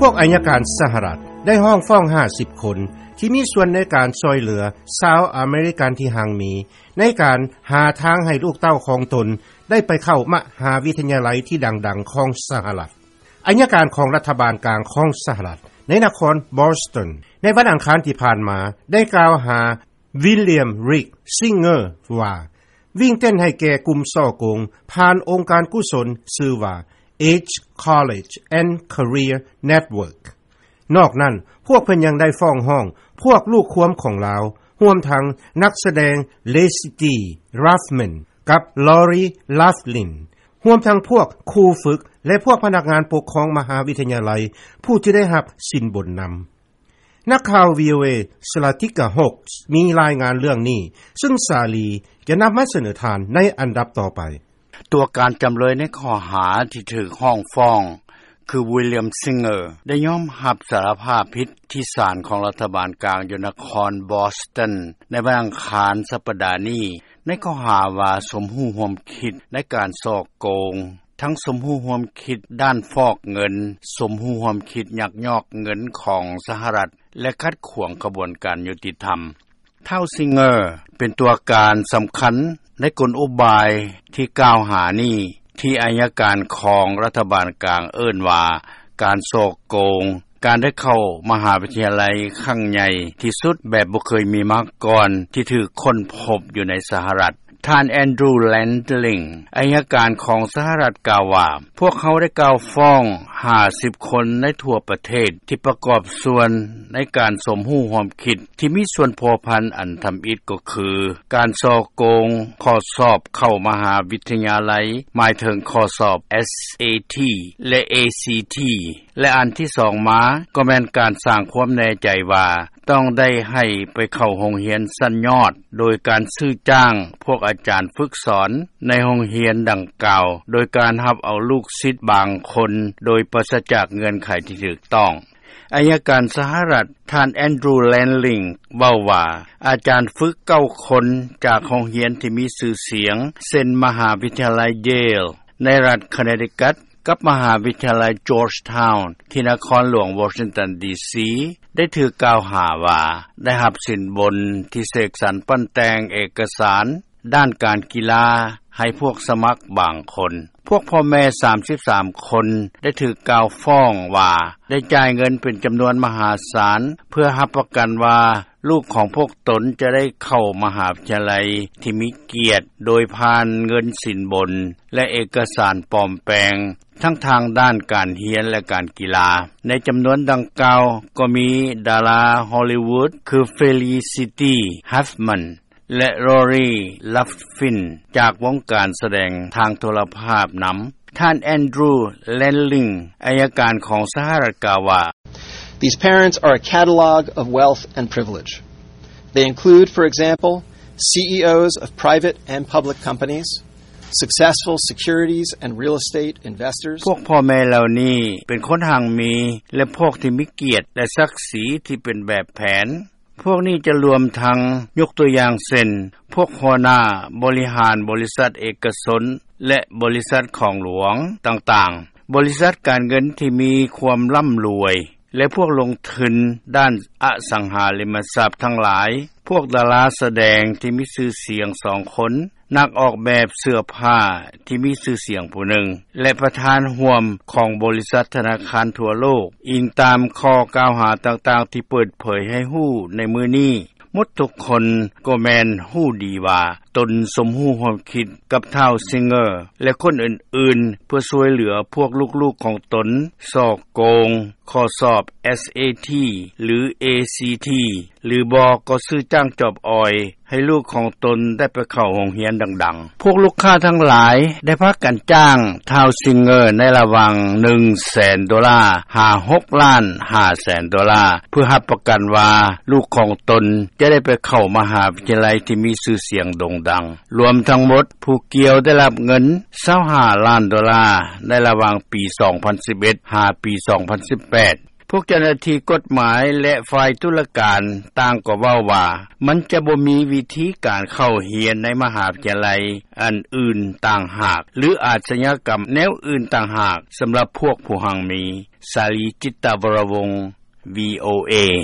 ພວກອັຍການສະຫະລັດ ໄດ້ຮ້ອງຟ້ອງ ຫ້າສິບຄົນ ທີ່ມີສ່ວນໃນການຊ່ອຍເຫຼືອ ຊາວອາເມລິກັນ ທີ່ຮັ່ງມີ ໃນການຫາທາງໃຫ້ລູກເຕົ້າຂອງຕົນ ໄດ້ໄປເຂົ້າມະຫາວິທະຍາໄລ ທີ່ດັງໆຂອງສະຫະລັດ. ອັຍການຂອງລັດຖະບານກາງຂອງສະຫະລັດ ໃນນະຄອນບອສຕັນ ໃນວັນອັງຄານທີ່ຜ່ານມາ ໄດ້ກ່າວຫາ ວິລຽມ ຣິກ ຊິງເກີ ວ່າ ວິ່ງເຕັ້ນໃຫ້ແກ່ກຸ່ມສໍ້ໂກງ ຜ່ານອົງການກຸສົນຊື່ວ່າ Age College and Career Network. ນອກນັ້ນ ພວກເພິ່ນຍັງໄດ້ຟ້ອງຮ້ອງ ພວກລູກຄວາມຂອງລາວ ຮວມທັງນັກສະແດງ ເລຊິຕີ ຣາຟແມນ ກັບ ລໍຣີ ລາຟລິນ ຮວມທັງພວກຄູຝຶກ ແລະ ພວກພະນັກງານປົກຄອງມະຫາວິທະຍາໄລ ຜູ້ທີ່ໄດ້ຮັບສິນບົນນຳ. ນັກຂ່າວ ວີໂອເອ ສະລາຕິກາ ໂຮກ ມີລາຍງານເລື່ອງນີ້ ຊຶ່ງສາລີຈະນຳມາສະເໜີທ່ານໃນອັນດັບຕໍ່ໄປ. ຕົວການຈຳເລີຍໃນຂໍ້ຫາທີ່ຖືກຮ້ອງຟ້ອງ ຄື ວິລຽມ ຊິງເກີ ໄດ້ຍອມຮັບສາລະພາບຜິດທີ່ສານຂອງລັດຖະບານກາງຢູ່ນະຄອນບອສຕັນ ໃນວັນອັງຄານສັປດານີ້ ໃນຂໍ້ຫາວ່າສົມຮູ້ຮ່ວມຄິດໃນການສໍ້ໂກງ, ທັງສົມຮູ້ຮ່ວມຄິດດ້ານຟອກເງິນ, ສົມຮູ້ຮ່ວມຄິດຍັກຍອກເງິນຂອງສະຫະລັດ ແລະ ຂັດຂວາງຂະບວນການຍຸຕິທຳ. ທ້າວ ຊິງເກີ ເປັນຕົວການສຳຄັນໃນກົນອຸບາຍທີ່ກ່າວຫານີ້ ທີ່ອັຍການຂອງລັດຖະບານກາງເອີ້ນວ່າ ການສໍ້ໂກງ, ການໄດ້ເຂົ້າມະຫາວິທະຍາໄລຄັ້ງໃຫຍ່ທີ່ສຸດແບບບໍ່ເຄີຍມີມາກ່ອນ ທີ່ຖືກຄົ້ນພົບຢູ່ໃນສະຫະລັດ. ທ່ານ ແອນດຣູ ແລນລິງ ອັຍການຂອງສະຫະລັດກ່າວວ່າ ພວກເຮົາໄດ້ກ່າວຟ້ອງ ຫ້າສິບຄົນໃນທົ່ວປະເທດ ທີ່ປະກອບສ່ວນໃນການສົມຮູ້ຮ່ວມຄິດ ທີ່ມີສ່ວນພົວພັນອັນທຳອິດກໍຄື ການສໍ້ໂກງຂໍ້ສອບເຂົ້າມະຫາວິທະຍາໄລ ໝາຍເຖິງຂໍ້ສອບ ເອສເອທີ ແລະ ເອຊີທີ ແລະ ອັນທີສອງມາກໍແມ່ນການສ້າງຄວາມແນ່ໃຈວ່າ ຕ້ອງໄດ້ໃຫ້ໄປເຂົ້າໂຮງຮຽນຊັ້ນຍອດ ໂດຍການຊື້ຈ້າງພວກອາຈານຝຶກສອນໃນໂຮງຮຽນດັ່ງກ່າວ ໂດຍການຮັບເອົາລູກສິດບາງຄົນໂດຍປາສະຈາກເງື່ອນໄຂທີ່ຖືກຕ້ອງ. ອັຍການສະຫະລັດ ທ່ານ ແອນດຣູ ແລນລິງ ເວົ້າວ່າ ອາຈານຝຶກເກົ້າຄົນຈາກໂຮງຮຽນທີ່ມີຊື່ສຽງ ເຊັ່ນ ມະຫາວິທະຍາໄລເຢລ ໃນລັດຄະເນຕິກັດ ກັບມະຫາວິທະຍາໄລຈອດທາວນ໌ ທີ່ນະຄອນຫຼວງວໍຊິງຕັນ ດີຊີ ໄດ້ຖືກກ່າວຫາວ່າ ໄດ້ຮັບສິນບົນທີ່ເສກສັນປັ້ນແຕ່ງເອກະສານດ້ານການກິລາໃຫ້ພວກສະໝັກບາງຄົນ. ພວກພໍ່ແມ່ສາມສິບສາມຄົນໄດ້ຖືກກ່າວຟ້ອງວ່າ ໄດ້ຈ່າຍເງິນເປັນຈຳນວນມະຫາສານ ເພື່ອຮັບປະກັນວ່າ ລູກຂອງພວກຕົນຈະໄດ້ເຂົ້າມະຫາວິທະຍາໄລທີ່ມີກຽດ ໂດຍຜ່ານເງິນສິນບົນ ແລະ ເອກະສານປອມແປງ ທັງທາງດ້ານການຮຽນ ແລະ ການກິລາ. ໃນຈຳນວນດັ່ງກ່າວກໍມີດາລາຮໍລີວູດ ຄື ເຟລີຊິຕີ ຮາຟແມນ ແລະ ລໍຣີ ລາຟຟິນ ຈາກວົງການສະແດງທາງໂທລະພາບນຳ. ທ່ານ ແອນດຣູ ແລນລິງ ອັຍການຂອງສະຫະລັດກ່າວວ່າ These parents are a catalog of wealth and privilege. They include, for example, C E Os of private and public companies, successful securities and real estate investors. ພວກພໍ່ແມ່ເຫຼົ່ານີ້ເປັນຄົນຮັ່ງມີ ແລະ ພວກທີ່ມີກຽດ ແລະ ສັກສີທີ່ເປັນແບບແຜນ. ພວກນີ້ຈະລວມທັງ ຍົກຕົວຢ່າງເຊັ່ນ ພວກຫົວໜ້າບໍລິຫານບໍລິສັດເອກະຊົນ ແລະ ບໍລິສັດຂອງຫຼວງຕ່າງໆ, ບໍລິສັດການເງິນທີ່ມີຄວາມລ່ຳລວຍ ແລະ ພວກລົງທຶນດ້ານອະສັງຫາລິມະຊັບທັງຫຼາຍ, ພວກດາລາສະແດງທີ່ມີຊື່ສຽງສອງຄົນ, ນັກອອກແບບເສື້ອຜ້າທີ່ມີຊື່ສຽງຜູ້ໜຶ່ງ ແລະ ປະທານຮ່ວມຂອງບໍລິສັດທະນາຄານທົ່ວໂລກ, ອີງຕາມຂໍ້ກ່າວຫາຕ່າງໆທີ່ເປີດເຜີຍໃຫ້ຮູ້ໃນມື້ນີ້. ໝົດທຸກຄົນກໍແມ່ນຮູ້ດີວ່າ ຕົນສົມຮູ້ຮ່ວມຄິດກັບທ້າວ ຊິງເກີ ແລະ ຄົນອື່ນໆ ເພື່ອຊ່ວຍເຫຼືອພວກລູກໆຂອງຕົນ ສໍ້ໂກງຂໍ້ສອບ ເອສເອທີ ຫຼື ເອຊີທີ ຫຼືບໍ່ກໍຊື້ຈ້າງຈອບອອຍ ໃຫ້ລູກຂອງຕົນໄດ້ໄປເຂົ້າໂຮງຮຽນດັງໆ. ພວກລູກຄ້າທັງຫຼາຍໄດ້ພາກັນຈ້າງທ້າວ ຊິງເກີ ໃນລະຫວ່າງ ໜຶ່ງແສນໂດລາ ຫາ ຫົກລ້ານຫ້າແສນໂດລາ ເພື່ອຮັບປະກັນວ່າ ລູກຂອງຕົນຈະໄດ້ໄປເຂົ້າມະຫາວິທະຍາໄລທີ່ມີຊື່ສຽງໂດ່ງດັງ. ລວມທັງໝົດ ຜູ້ກ່ຽວໄດ້ຮັບເງິນ ຊາວຫ້າລ້ານໂດລາ ໃນລະຫວ່າງປີສອງພັນສິບເອັດ ຫາປີສອງພັນສິບແປດ. ພວກເຈົ້າໜ້າທີ່ກົດໝາຍ ແລະ ຝ່າຍຕຸລາການ ຕ່າງກໍເວົ້າວ່າ ມັນຈະບໍ່ມີວິທີການເຂົ້າຮຽນ ໃນມະຫາວິທະຍາໄລ ອື່ນໆຕ່າງຫາກ ຫຼືອາຊຍາກັມແນວອື່ນຕ່າງຫາກ ສຳລັບພວກຜູ້ຮັ່ງມີ. ສາລີ ຈິດຕະວໍລະວົງ VOA.